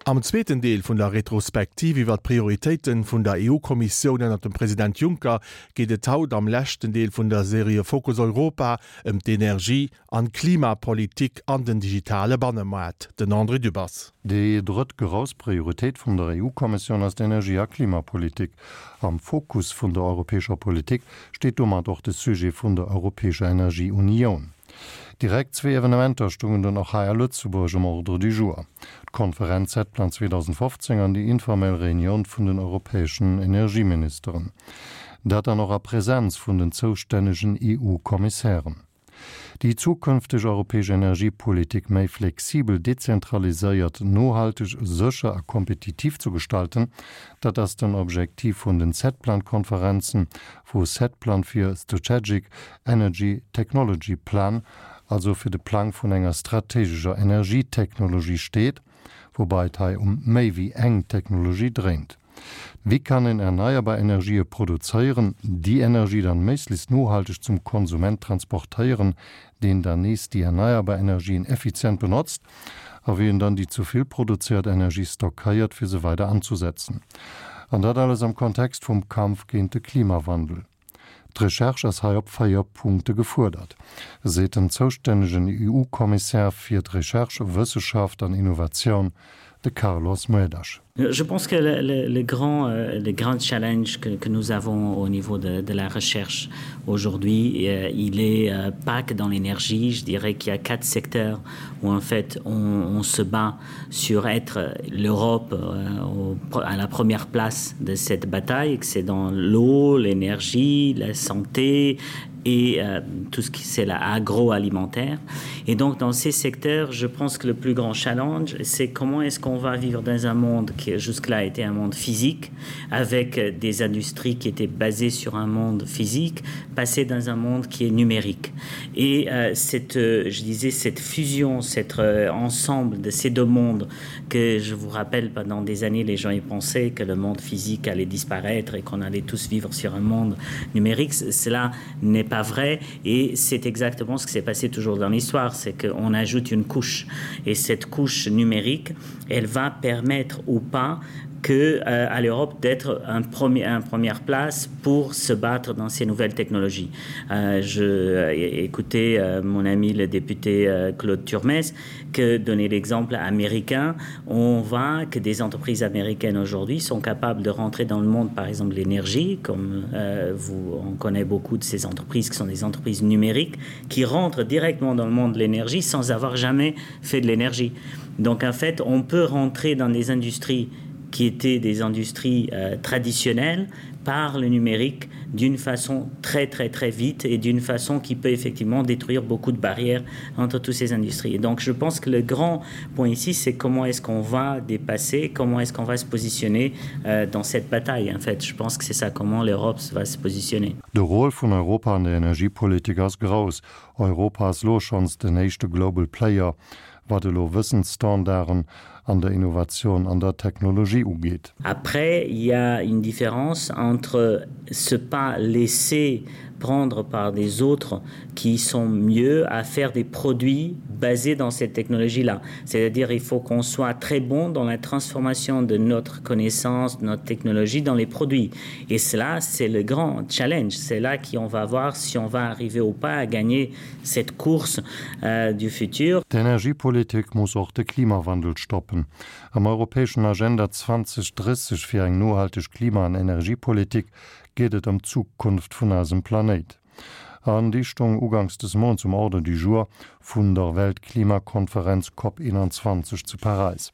Am zweeten Deel vun der Retrospektiv iwwer d'Prioritéiten vun der EU-Kommissioun ënnert dem President Juncker geet et haut am leschten Deel vun der Serie Fokus Europa ëm d'Energie an d'Klimapolitik an den digitale Bannemaart. Den André Dübbers. Déi drëtt grouss Prioritéit vun der EU-Kommissioun ass d'Energie a Klimapolitik. Am Fokus vun der europäescher Politik steet domat och de Sujet vun der europäescher Energieunioun. Direkt zwee Evenementer stungen dunn och hei a Lëtzebuerg um Ordre du jour, d'Konferenz Setplan 2015 an déi informell Reunioun vun den europäeschen Energieministeren. Dat dann och a Präsenz vun den zoustännegen EU-Kommissären. Déi zukünfteg europäesch Energiepolitik méi flexibel, dezentraliséiert, nohalteg, sécher a kompetitiv zu gestalten, dat ass den Objektiv vun den Setplan-Konferenzen, wou Setplan fir Strategic Energy Technology Plan, also fir de Plang vun enger strategescher Energietechnologie steet, woubai et hei um méi wéi eng Technologie dréint. Wéi kann een erneierbar Energië produzéieren, déi Energie dann méiglechst nohalteg zum Konsument transportéieren, deen dann nees déi erneierbar Energien effizient benotzt, a wéi een dann déi zu vill produzéiert Energie stockéiert, fir se weider anzusetzen. An dat alles am Kontext vum Kampf géint de Klimawandel. D'Recherche ass hei op 4 Punkte gefuerdert, seet den zoustännegen EU-Kommissär fir d'Recherche, Wësseschaft an Innovatioun, de Carlos Moedas. Je pense que le, le, le, grand, euh, le grand challenge que, que nous avons au niveau de, de la recherche aujourd'hui, euh, il est euh, pas que dans l'énergie, je dirais qu'il y a quatre secteurs où en fait on, on se bat sur être l'Europe euh, à la première place de cette bataille, que c'est dans l'eau, l'énergie, la santé et euh, tout ce qui c'est l'agroalimentaire. Et donc dans ces secteurs, je pense que le plus grand challenge, c'est comment est-ce qu'on va vivre dans un monde qui jusque-là était un monde physique, avec des industries qui étaient basées sur un monde physique, passer dans un monde qui est numérique. Et euh, cette, euh, je disais, cette fusion, cet euh, ensemble de ces deux mondes que je vous rappelle pendant des années, les gens y pensaient que le monde physique allait disparaître et qu'on allait tous vivre sur un monde numérique, cela n'est pas vrai et c'est exactement ce qui s'est passé toujours dans l'histoire, c'est qu'on ajoute une couche et cette couche numérique, elle va permettre ou pas que euh, à l'Europe d'être un premier un première place pour se battre dans ces nouvelles technologies. Euh, je euh, écoutais euh, mon ami le député euh, Claude Turmes que donner l'exemple américain, on voit que des entreprises américaines aujourd'hui sont capables de rentrer dans le monde par exemple l'énergie comme euh, vous on connaît beaucoup de ces entreprises qui sont des entreprises numériques qui rentrent directement dans le monde de l'énergie sans avoir jamais fait de l'énergie. Donc en fait on peut rentrer dans des industries qui étaient des industries euh, traditionnelles par le numérique d'une façon très très très vite et d'une façon qui peut effectivement détruire beaucoup de barrières entre toutes ces industries. Et donc je pense que le grand point ici c'est comment est-ce qu'on va dépasser, comment est-ce qu'on va se positionner euh, dans cette bataille en fait je pense que c'est ça comment l'Europe va se positionner. De Rôle vun Europa an der Energiepolitik ass grouss. Europa ass lo schonns den éischte Global Player, wat elo Wëssensstandarden an der Innovation an der Technologie ugeet. Après, il y a une différence entre se pas laisser prendre par des autres qui sont mieux à faire des produits basés dans cette technologie là. C'est-à-dire il faut qu'on soit très bon dans la transformation de notre connaissance, de notre technologie dans les produits. Et cela c'est le grand challenge, c'est là qu'on va voir si on va arriver ou pas à gagner cette course euh, du futur. D'Energiepolitik muss och de Klimawandel stoppen. Am europäeschen Agenda 2030 fir eng nohalteg Klima an Energiepolitik geet et ëm d'Zukunft vun eisem Planéit. An déi stoung uganks des Mounts um Ordre du jour vun der Weltklimakonferenz Cop 21 zu Paräis.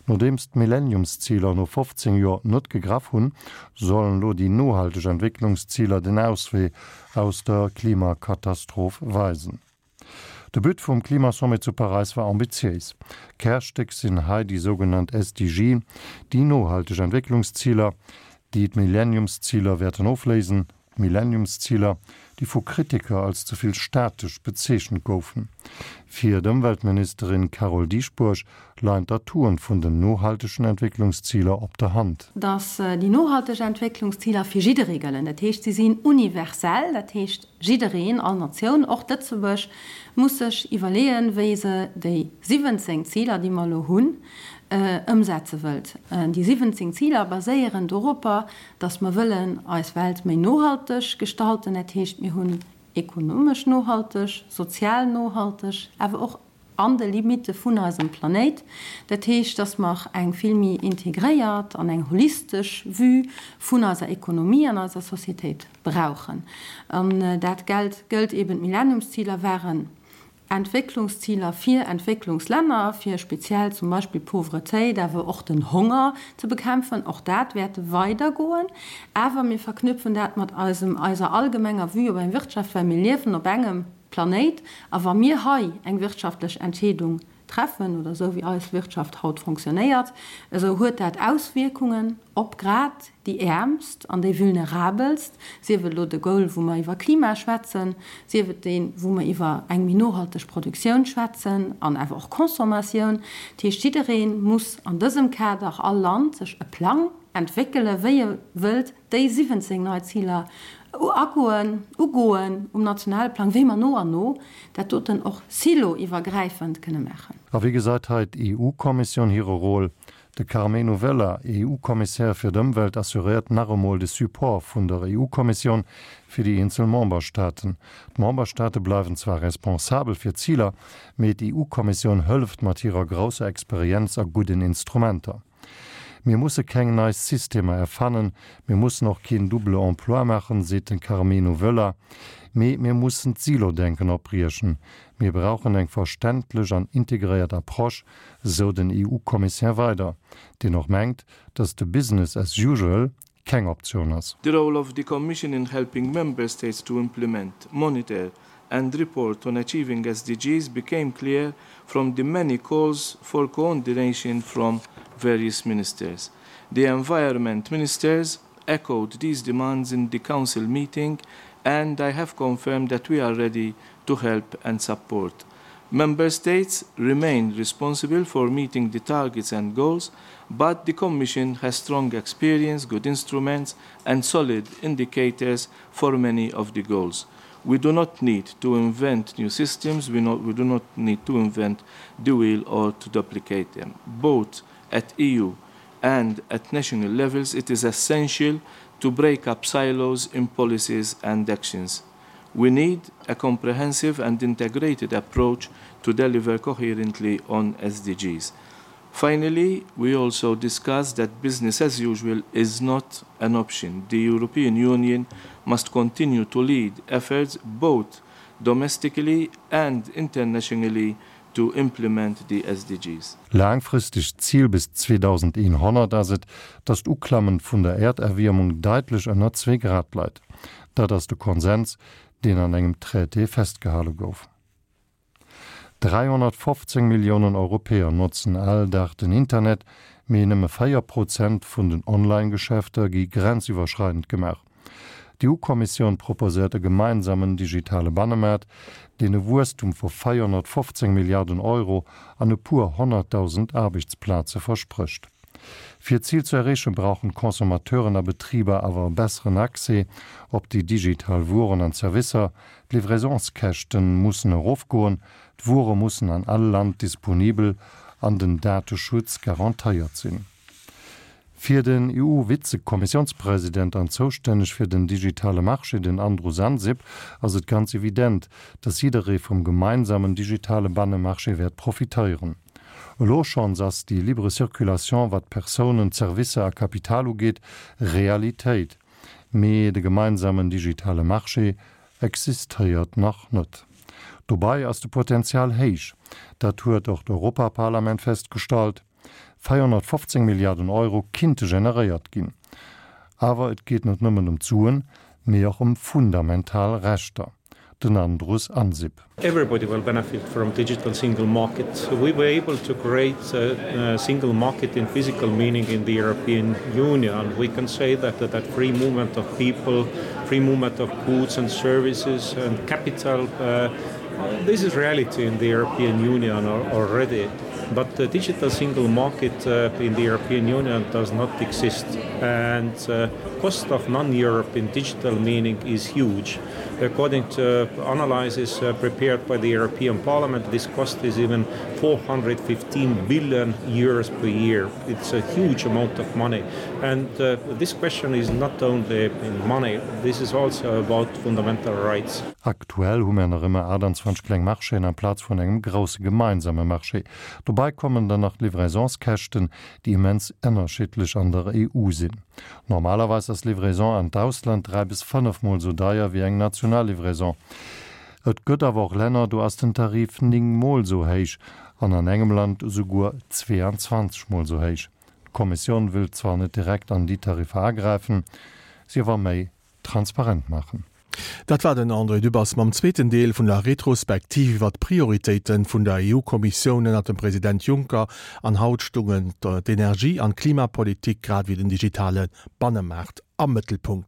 Nodeems d'Millenniumsziler no 15 Joer net gegraff hunn, sollen elo déi nohalteg Entwécklungsziler den Auswee aus der Klimakatastroph weisen. De But vum Klimasommet zu Paräis war ambitiéis. Kärstéck sinn hei déi sougenannt SDG, déi nohalteg Entwécklungsziler, déi d'Millenniumsziler wäerten ofléisen. D'Millenniumsziler, déi vu Kritiker als ze vill statesch bezeechent goufen. Fir d'Ëmweltministerin Carole Dieschbourg leien d'Atouen vun den nohaltegen Entwécklungsziler op der Hand. Datt déi nohalteg Entwécklungsziler fir jidderee gëllen. Dat heescht, si sinn universell, dat heescht jiddereen, all Natioun, och Lëtzebuerg, muss sech iwwerleeën, wéi se déi 17 Ziler, déi mer elo hunn, Ëmsetze wëllt. Déi 17 Ziler baséieren doropper, datt mer wëllen eis Welt méi nohalteg gestalten. Dat heescht, mir hunn ekonomesch nohalteg, sozial nohalteg, awer och an de Limitte vun eisem Planéit. Dat heescht, datt mer eng vill méi integréiert an eng holistesch Vue vun eiser Ekonomie an eiser Societéit brauchen. An dat gëllt eben, d'Millenniumsziler waren Entwécklungsziler fir Entwécklungslänner, fir speziell zum Beispill d'Pauvretéit, awer och den Honger ze bekämpfen. Och dat wäert weidergoen. Awer mir verknüpfen dat mat eisem, eiser allgemenger Vue op eng Wirtschaft, well mir liewen op engem Planéit. A wa mir hei eng wirtschaftlech Entscheedung treffen, oder esou wéi eis Wirtschaft haut fonctionnéiert, esou huet dat Auswierkungen op grad déi Äermst an déi Vulnerabelst, sief et elo de Goal, wou mer iwwer Klima schwätzen, sief et deen, wou mer iwwer eng méi nohalteg Produktioun schwätzen an awer och Consommatioun. Dat heescht, jidderee muss an dësem Kader, all Land, sech e Plang entwéckelen, wéi e wëllt déi 17 nei Ziler agoen, ugoen um nationale Plang, wéi mer no an no dat doten och siloiwwergräifend kënne maachen. A wéi gesäit hei d'EU-Kommissioun hire Rôle? De Karmenu Vella, EU-Kommissär fir d'Ëmwelt, assuréiert nach emol de Support vun der EU-Kommissioun fir déi eenzel Memberstaaten. D'Memberstaate bleiwen zwar responsabel fir d'Ziler, mee d'EU-Kommissioun hëlleft mat hirer grousser Experienz a gudden Instrumenter. Mir musse keng nei Systemer erfannen, mir mussen och keen double emploi maachen, seet de Karmenu Vella, mee mir mussen d'Silo-Denken opbriechen. Mir brauchen eng verständlech an integréiert Approche, sou den EU-Kommissär weider, deen och mengt, datt de Business as usual keng Optioun ass. The role of the Commission in helping Member States to implement, monitor and report on achieving SDGs became clear from the many calls for coordination from various ministers. The environment ministers echoed these demands in the Council meeting and I have confirmed that we are ready to help and support. Member States remain responsible for meeting the targets and goals, but the Commission has strong experience, good instruments and solid indicators for many of the goals. We do not need to invent new systems, we, not, we do not need to invent the wheel or to duplicate them. Both at EU and at national levels, it is essential to break up silos in policies and actions. We need a comprehensive and integrated approach to deliver coherently on SDGs. Finally, we also discussed that business as usual is not an option. The European Union must continue to lead efforts both domestically and internationally to implement the SDGs. Laangfristegt Zil bis 2100 ass et, datt d'Uklammen vun der Äerderwiermung daitlech ënner zwee Grad leit. Dat ass de Konsens, deen an engem Traité festgehale gouf. 315 Milliounen Europäer notzen all Dag den Internet, mee nëmme 4 Prozent vun den Online-Geschäfter gi grenziwwerschreidend gemaach. D'EU-Kommissioun proposéiert e gemeinsamen digitale Bannemaart, deen e Wuesstum vu 415 Milliarden Euro an e puer 100.000 Aarbechtsplaze versprécht. Fir d'Zil ze erreechen, brauchen d'Consommateuren a Betriber awer e besseren Accès op déi digital Wueren an Servicer, d'Livraisonskäschte mussen erofgoen, d'Wuere mussen an all Land disponibel an den Dateschutz garantéiert sinn. Fir den EU-Vizekommissiounspresident an zoustänneg fir den digitale Marché, den Andrus Ansip, ass et ganz evident, datt jidderee vum gemeinsamen digitale Bannemarché wäert profitéieren. Elo schonns ass déi libre Circulation, wat Persounen, Zerwisser a Kapital ugeet, Realitéit. Mee de gemeinsamen digitale Marché existéiert nach net. Dobei ass de Potenzial héich, dat huet och d'Europaparlament festgestallt. 415 Milliarden Euro kinnte generéiert ginn. Awer et geet net nëmmen ëm d'Suen, mee och ëm fundamental Rechter. Den Andrus Ansip. Everybody will benefit from digital single market. We were able to create a, a single market in physical meaning in the European Union. We can say that, that that free movement of people, free movement of goods and services and capital, uh, this is reality in the European Union already. But the digital single market uh, in the European Union does not exist and uh, cost of non-Europe in digital meaning is huge. According to analyses uh, prepared by the European Parliament, this cost is even 415 billion euros per year. It's a huge amount of money. And uh, this question is not only in money, this is also about fundamental rights. Aktuell hu mer nach ëmmer 28 kleng Marchéen amplaz vun engem grousse gemeinsame Marché. Dobei kommen dann nach d'Livraisonskäschten, déi immens ënnerschiddlech an der EU sinn. Normalerweis ass Livraison an d'Ausland 3 bis 5 mol sou deier wéi eng national Livraison. Et gëtt awer och Länner, do ass den Tarif 9 mol sou héich an an engem Land esouguer 22 mol sou héich. D'Kommissioun wëllt zwar net direkt an déi Tariffer agräifen, si awer méi transparent maachen. Dat war den André Dübbers mam zweeten Deel vun der Retrospektiv iwwer d'Prioritéite vun der EU-Kommissioun ënnert dem President Juncker. An haut stungen d'Energie an d'Klimapolitik grad ewéi den digitale Bannemaart am Mëttelpunkt.